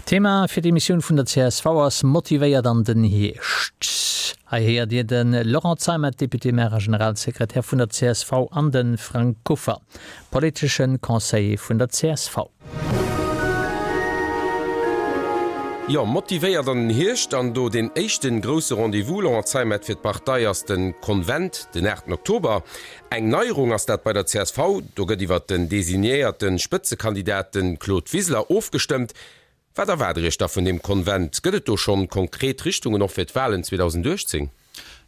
Thema fir d'Emissioun vun der csv ass Motivéiert an den Hierscht. Hei héiert Dir de Laurent Zeimet, Député-maire a Generalsekretär vun der csv an de Frank Kuffer, politesche Conseiller vun der csv. Jo, motivéiert an den Hierscht an do deen éischten grousse Rendez-vous, Laurent Zeimet, fir d'Partei ass den Konvent den 8 Oktober. Eng Neierung ass dat bei der csv, do gëtt iwwert den designéierte Spëtzekandidat, de Claude Wiseler, ofgestëmmt. Wat erwaart Der Iech da vun deem Konvent? Gëtt et do schonn konkret Richtungen och fir d'Wahlen 2018?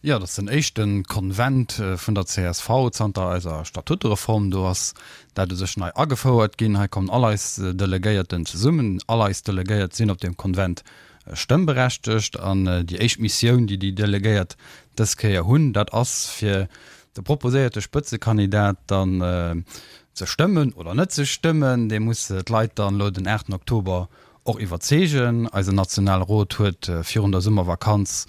Jo, dat ass den éischte Konvent vun der csv zanter eiser Statutereform. Do ass dat u sech nei agefouert ginn. Hei kommen all eis Delegéierten zesummen. All eis Delegéiert sinn op deem Konvent stëmmberechtegt. An déi éischt Missioun, déi déi Delegéiert dës Kéier hunn, dat ass, fir de proposéierte Spëtzekandidat dann ze stëmmen oder net ze stëmmen. Dee muss d'Leit dann elo den 8 Oktober och iwwerzeegen. Eisen Nationale Rot huet virun der Summervakanz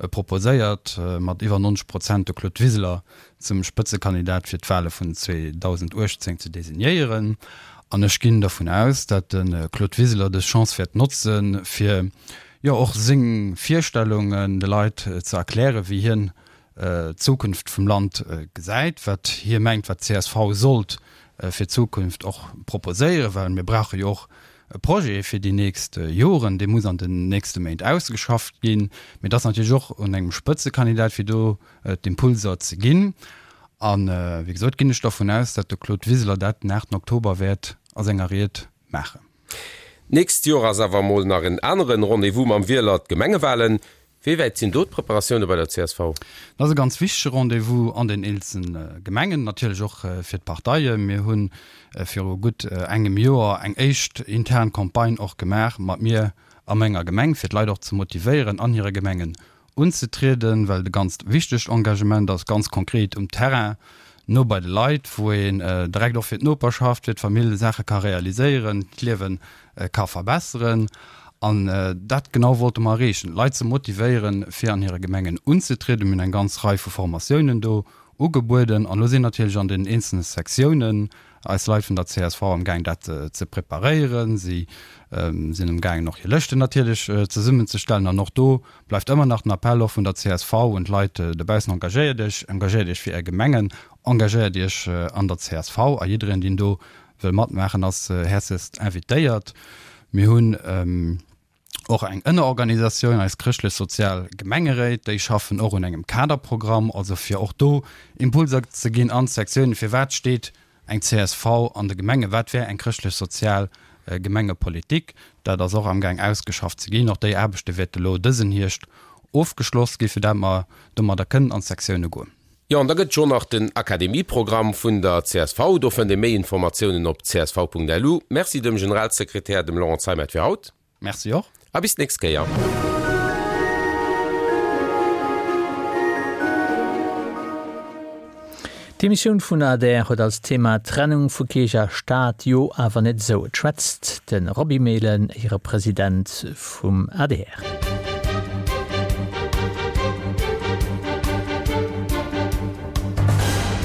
proposéiert, mat iwwer 90 Prozent de Claude Wiseler zum Spëtzekandidat fir d'Wale vun 2018 ze designéieren. An ech ginn dervun aus, dat de Claude Wiseler dës Chance wäert notzen, fir jo och seng Virstellungen de Leit ze erklären, wéi hien d'Zukunft vum Land gesäit, wat hie mengt, wat d'CSV sollt fir d'Zukunft och proposéieren, well mir brauche jo och e Projet fir déi nächst Joren, dee muss an den nächste Méint ausgeschafft ginn. Mee et ass natierlech och un engem Spëtzekandidat, fir do d'Impulser ze ginn. A wéi gesot ginn ech dervun aus, datt de Claude Wiseler dat den 8 Oktober wäert a senger Ried maachen. D'nächst Joer ass awer emol nach en aneren Rendez-vous mam Wieler, d'Gemengewahlen. Wéi wäit sinn do d'Preparatioune bei der csv? Dat ass e ganz wichtege Rendez-vous an den eenzelne Gemengen, natierlech och fir d'Parteien. Mir hu viru gutt engem Joer eng éischt intern Campagne och gemaach mat mir a menger Gemeng, fir d'Leit och ze motivéieren, an hire Gemengen unzetrieden, well et e ganzt wichtegt Engagement ass, ganz konkret um Terrain, no bei de Leit, wou een direkt och fir d'Noperschaft, fir d'Famill Saache ka realiséieren, d'Liewe ka verbesseren. An dat genau wollte mer erreechen, d'Leit ze motivéieren, fir an hire Gemengen unzetrieden. Mir hunn eng ganz Rei vu Formatiounen do ugebueden. An elo sinn natierlech an den eenzelne Sektiounen eis Leit vun der csv amgaang, dat ze preparéieren. Si sinn amgaangen, och hir Lëschten natierlech zesummenzestellen. An och do bleift ëmmer nach den Appell och vun der csv un d'Leit dobaussen, Engagéiert Iech, engagéiert Iech fir Är Gemengen, engagéiert Iech an der csv. A jiddereen, deen do wëll matmaachen, ass häerzlechst invitéiert. Mir hunn och eng Ënnerorganisatioun, eis chrëschtlech-sozial Gemengeréit, déi schaffen och un engem Kaderprogramm, also fir och do Impulser ze ginn an d'Sektiounen, firwat steet eng csv an de Gemengen, wat wär eng chrëschtlech-sozial Gemengepolitik. Dat ass och amgaang ausgeschafft ze ginn. Och déi Aarbechte wäerte lo dësen Hierscht ofgeschloss ginn, fir dat mer domadder kënnen an d'Sektioune goen. Jo, an da gëtt jo nach den Akademieprogramm vun der csv. Do fënnt ee méi Informatiounen op csv.lu. Merci dem Generalsekretär, dem Laurent Zeimet fir haut. Merci och. A bis d'nächst Kéier. D'Emissioun vun adr huet als Thema Trennung vu Kierch a Staat, jo awer net esou. Et schwätzt de Roby Mehlen, Éierepresident vum adr.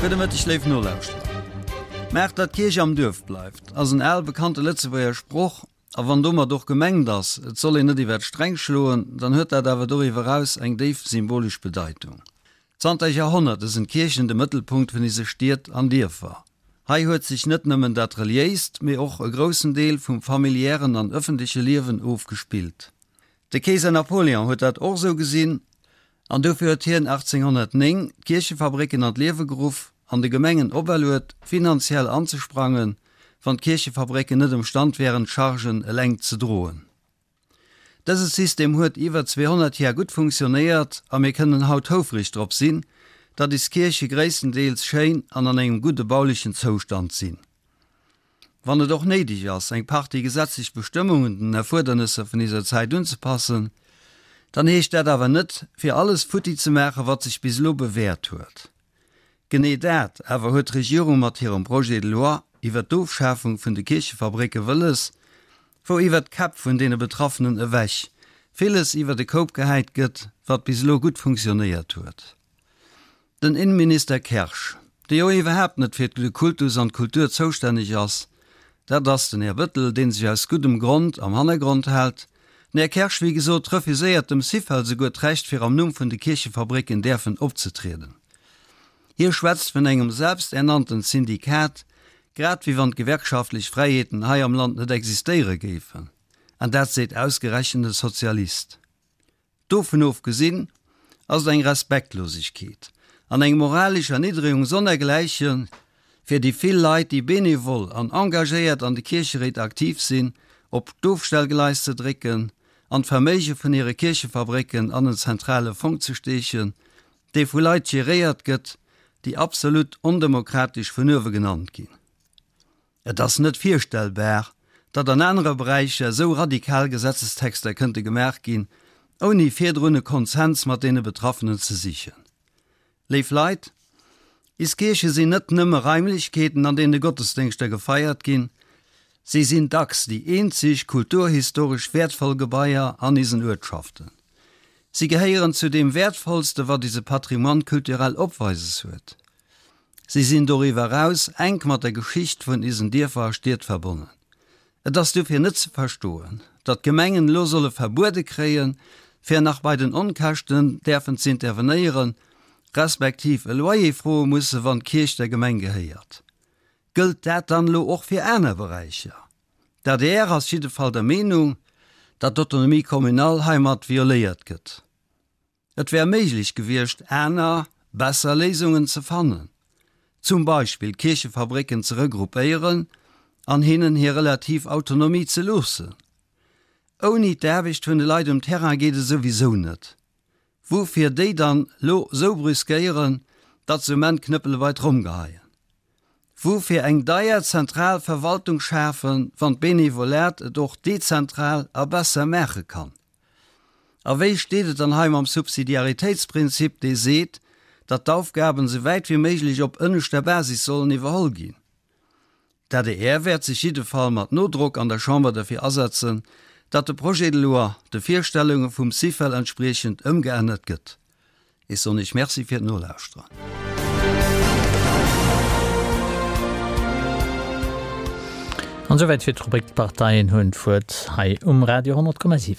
Gudde Mëtteg léif Nolauschterer. Maacht datt d'Kierch am Duerf bleift ass en al bekannte Lëtzebuerger Sproch, a wann domat och gemengt ass, et soll een net iwwer d'Sträng schloen, dann huet dat awer doriwwer eraus eng déif symbolesch Bedeitung. Zanter Jahrhonnerte sinn d'Kierchen de Mëttelpunkt vun ise Stied an Dierfer. Hei huet sech net nëmmen dat reliéist, mee och e groussen Deel vum familiären an ëffentleche Liewen ofgespillt. De Keeser Napoléon huet dat och esou gesinn an dofir huet hien 1809 d'Kierchefabrécken an d'Liewe geruff an de Gemengen operluet, finanziell anzesprangen, wann d'Kierchefabrécken net emstand wären, d'Chargen eleng ze droen. Dëse System huet iwwer 200 Jar gutt funktionéiert a mir kënnen haut houfreg drop sinn, datt is Kierche gréisstendeels schéin an an engem gudde baulechen Zoustand sinn. Wann et och néideg ass, eng Partie gesetzlech Bestëmmungen den Erfuerdernësser vun iser Zäit unzepassen, dann heescht dat awer net, fir alles futti ze maachen, wat sech bis elo bewäert huet. Genee dat awer huet d'Regierung mat hirem Projet de loi iwwert d'Ofschafung vun de Kierchefabrécke wëlles, wou iwwert d'Käpp vun deene Betraffenen ewech villes iwwert e Koup gehäit gëtt, wat bis elo gutt funktionéiert huet. Den Innenminister Kersch, dee jo iwwerhaapt net fir de Kultus an d'Kultur zoustänneg ass, dat ass den Här Bettel, dee sech aus guddem Grond am Hannergrond hält. Den Här Kersch, wéi gesot, refuséiert dem Syfel souguer d'Recht fir am Numm vun de Kierchefabrécken däerfen opzetrieden. Hie schwätzt vun engem selbsternannten Syndikat, grad wéi wann d'gewerkschaftlech Fräiheeten hei am Land net existéiere géifen. An dat seet ausgerechent e Sozialist. Dovun ofgesinn ass et eng Respektlosegkeet an eng moralesch Erniddregung sonnergläichen fir déi vill Leit, déi benevol an engagéiert an de Kiercheréit aktiv sinn, op d'Ofstellgleis ze drécken an d'Verméige vun hire Kierchefabrécken an en zentrale Fong ze steechen, dee vu Leit geréiert gëtt, déi absolut ondemokratesch vun uewe genannt ginn. Et ass net virstellbar, datt an anere Beräicher esou radikal Gesetzestexter kënnte gemaach ginn, ouni virdrun e Konsens mat deene Betraffenen ze sichen. Léif Leit, is Kierche sinn net nëmme Raimlechkeeten, an deene Gottesdéngschter gefeiert ginn, si sinn dacks déi eenzeg kulturhistoresch wäertvoll Gebaier an isen Uertschaften. Si gehéieren zu deem Wäertvollste wat ise Patrimoine culturel opweises huet. Si sinn doriwwer eraus enk mat der Geschicht vun isen Dierfer a Stied verbonnen. Et ass dofir net ze verstoen, datt d'Gemengen elo solle verbuede kréien, fir nach bei den Onkäschten däerfen z'intervenéieren, respektiv e Loyer froe musse wann d'Kierch der Gemeng gehéiert. Gëllt dat dann elo och fir aner Beräicher? D'adr ass jiddefall der Meenung, datt d'Autonomie communale heimat violéiert gëtt. Et wär méiglech gewiescht, aner, besser Léisungen ze fannen, zum Beispill d'Kierchefabrécken ze regroupéieren an hinnen hir relativ Autonomie ze loossen. Ouni d'Aarbecht vun de Leit um Terrain geet et souwisou net. Woufir déi dann lo sou brüskéieren, datt se um Enn d'Knëppele bei d'Tromm geheien? Woufir eng deier zentral Verwaltung schafen, wann d'Benevolat et och dezentral a besser maache kann? A wéi steet et dann hei mam Subsidiaritéitsprinzip, dee seet, datt d'Aufgaben esou wäit wéi méiglech op ënneschter Basis sollen iwwerholl ginn? D'adr wäert sech jiddefall mat Nodrock an der Chamber derfir asetzen, datt de Projet de loi de Virstellunge vum Syfel entspriechend ëmgeännert gëtt. Ech soen Iech Merci fir d'Nolauschteren. An esouwäit fir d'Rubrik D'Parteien hunn d'Wuert hei um Radio 10,7.